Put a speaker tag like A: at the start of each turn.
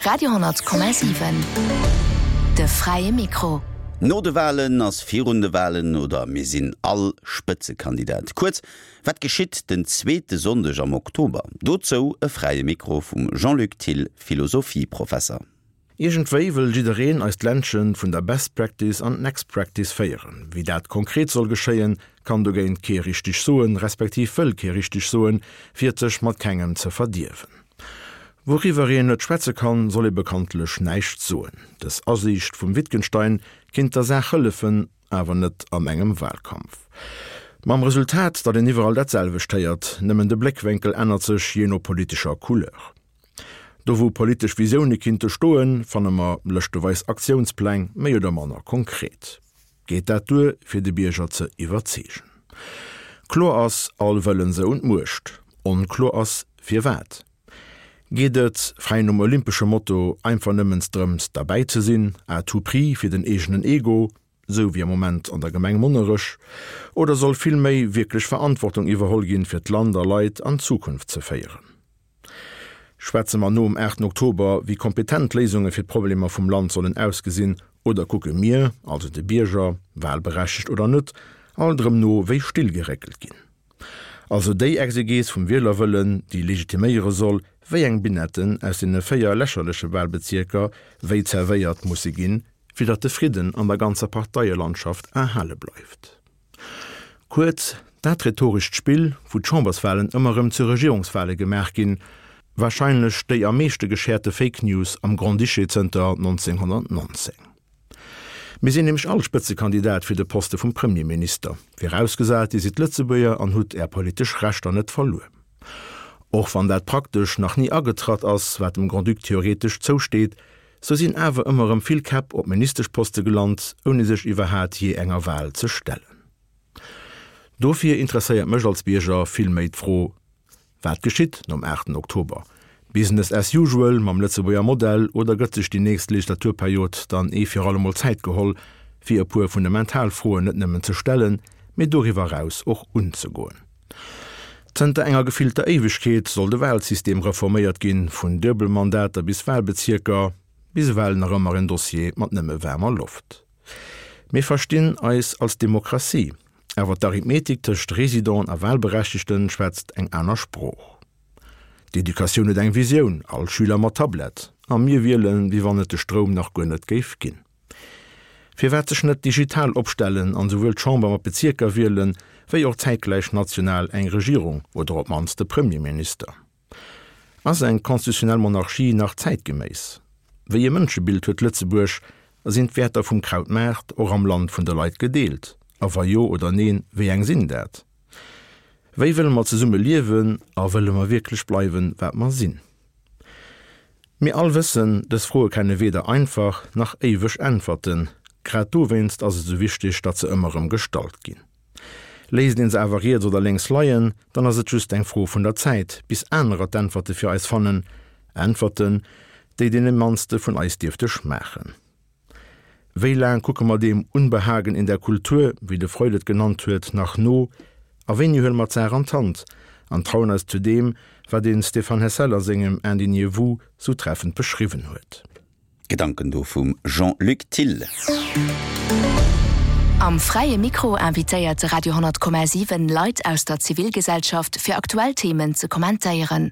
A: Radio 10,7 De fräie Mikro.
B: No de Walen ass virun de Walen oder mir sinn all Spëtzekandidat. Kuerz, wat geschitt den zweete Sonndeg am Oktober? Dozou e fräie Mikro vum Jean-Luc Thill, Philosophieprofesser.
C: Iergendwéi wëll jiddereen eist Ländchen vun der Best Practice an d'Next Practice féieren. Wéi dat konkret soll geschéien, kann dogéint kee richteg soen, respektiv wëll kee richteg soen, fir et sech mat kengem ze verdierwen. Wouriwwer een net schwätze kann, soll ee bekanntlech näischt soen. Dës Asiicht vum Wittgenstein kinnt der Saach hëllefen, awer net an engem Wahlkampf. Mam Resultat, datt een iwwerall dat selwecht héiert, nëmmen de Bléckwénkel ännert sech jee no politescher Couleur. Do wou politesch Visioune kinnte stoen, fanne mer lëschteweis Aktiounspläng, méi oder manner konkret. Geet dat duer, fir de Bierger ze iwwerzeegen? Kloer ass, all wëllen se un d'Muecht. Onkloer ass, firwat. Geet et, fräi nom olympesche Motto, einfach nëmmens drëms derbäi ze sinn, à tout prix, fir den eegenen Ego, sou wéi am Moment an der Gemeng Monnerech, oder soll vill méi wierklech Verantwortung iwwerholl ginn, fir d'Land a Leit an d'Zukunft ze féieren? Schwätze mer nom 8 Oktober, wéi kompetent d'Léisunge fir d'Problemer vum Land sollen ausgesinn, oder kucke mir, also de Bierger, wahlberechtegt oder net, alt erëm no wéi Still geréckelt ginn? Also déi Exegees vum Wielerwëllen, déi legitiméiere soll, wéi eng Binetten aus deene 4 lächerleche Wahlbezierker wéi zerwéiert musse ginn, fir datt de Fridden an der ganzer Parteielandschaft erhale bleift. Kuerz, dat rhetorescht Spill, wou d'Chamberswahlen ëmmer erëm zu Regierungswahle gemaach ginn, warscheinlech déi am meeschte gescherte Fake News am Grand-Duché zënter 1919. Mir sinn nämlech all Spëtzekandidat fir de Poste vum Premierminister, virausgesat Dir sidd Lëtzebuerger an hutt Är politesch Rechter net verluer. Och wann dat praktesch nach ni agetratt ass, wat dem Grand-Duc theoretesch zousteet, Sou sinn awer ëmmer erëm vill Käpp op Ministeschposte gelant, ouni sech iwwerhaat jee enger Wahl ze stellen. Dofir interesséiert mech als Bierger vill méi d'Fro, Wat geschitt nom 8 Oktober? Business as usual mam Lëtzebuerger Modell oder gëtt sech déi nächst Legislaturperiod dann ee fir allemol Zäit geholl, fir e puer fundamental Froen net nëmmen ze stellen, mee doriwwer eraus och unzegoen? Zënter enger gefillter Éiwegkeet soll de Wahlsystem reforméiert ginn, vun Duebelmandater bis Wahlbezierker, bis ewell nach ëmmer en Dossier mat nëmme waarmer Loft. Mir verstinn eis als Demokratie, awer d'Arithmetik tëscht Residenten a Wahlberechtegten schwätzt eng aner Sprooch. D'Educatioun huet eng Visioun, all Schüler mat Tablett, a mir wielen, wéi wann et de Stroum nach guer net géif ginn. Firwat sech net digital opstellen an souwuel d'Chamber mat Bezierker wielen, wéi och zäitgläich national eng Regierung oder op mannst e Premierminister? Ass eng constitutionnel Monarchie nach zäitgeméiss? Wéi e Mënschebild huet Lëtzebuerg a sinn d'Wäerter vum Krautmaart och am Land vun de Leit gedeelt? A wa jo oder neen, wéi eng sinn dat? Wéi wëlle mer zesumme liewen a wëlle mer wierklech bleiwen, wat mer sinn? Mir all wëssen, dës Froe kenne weder einfach nach éiweg Äntwerten. Grad dowéinst ass et esou wichteg, datt se ëmmer erëm gestallt ginn. Léisst een se awer riets oder lénks leien, dann ass et just eng Fro vun der Zäit, bis anerer d'Äntwerte fir eis fannen, Äntwerten, déi deene mannste vun eis dierfte schmaachen. Wéi laang kucke mer deem Unbehagen in der Kultur, wéi de Freud et genannt huet, nach no? A wéini huele mer d'Saach an d'Hand an trauen eis zu deem, wat de Stéphane Hessel a sengem Indignez-vous sou treffend beschriwwen huet?
B: Gedanken do vum Jean-Luc Thill.
A: Am Fräie Mikro invitéiert de Radio 10,7 Leit aus der Zivilgesellschaft fir aktuell Themen ze kommentéieren.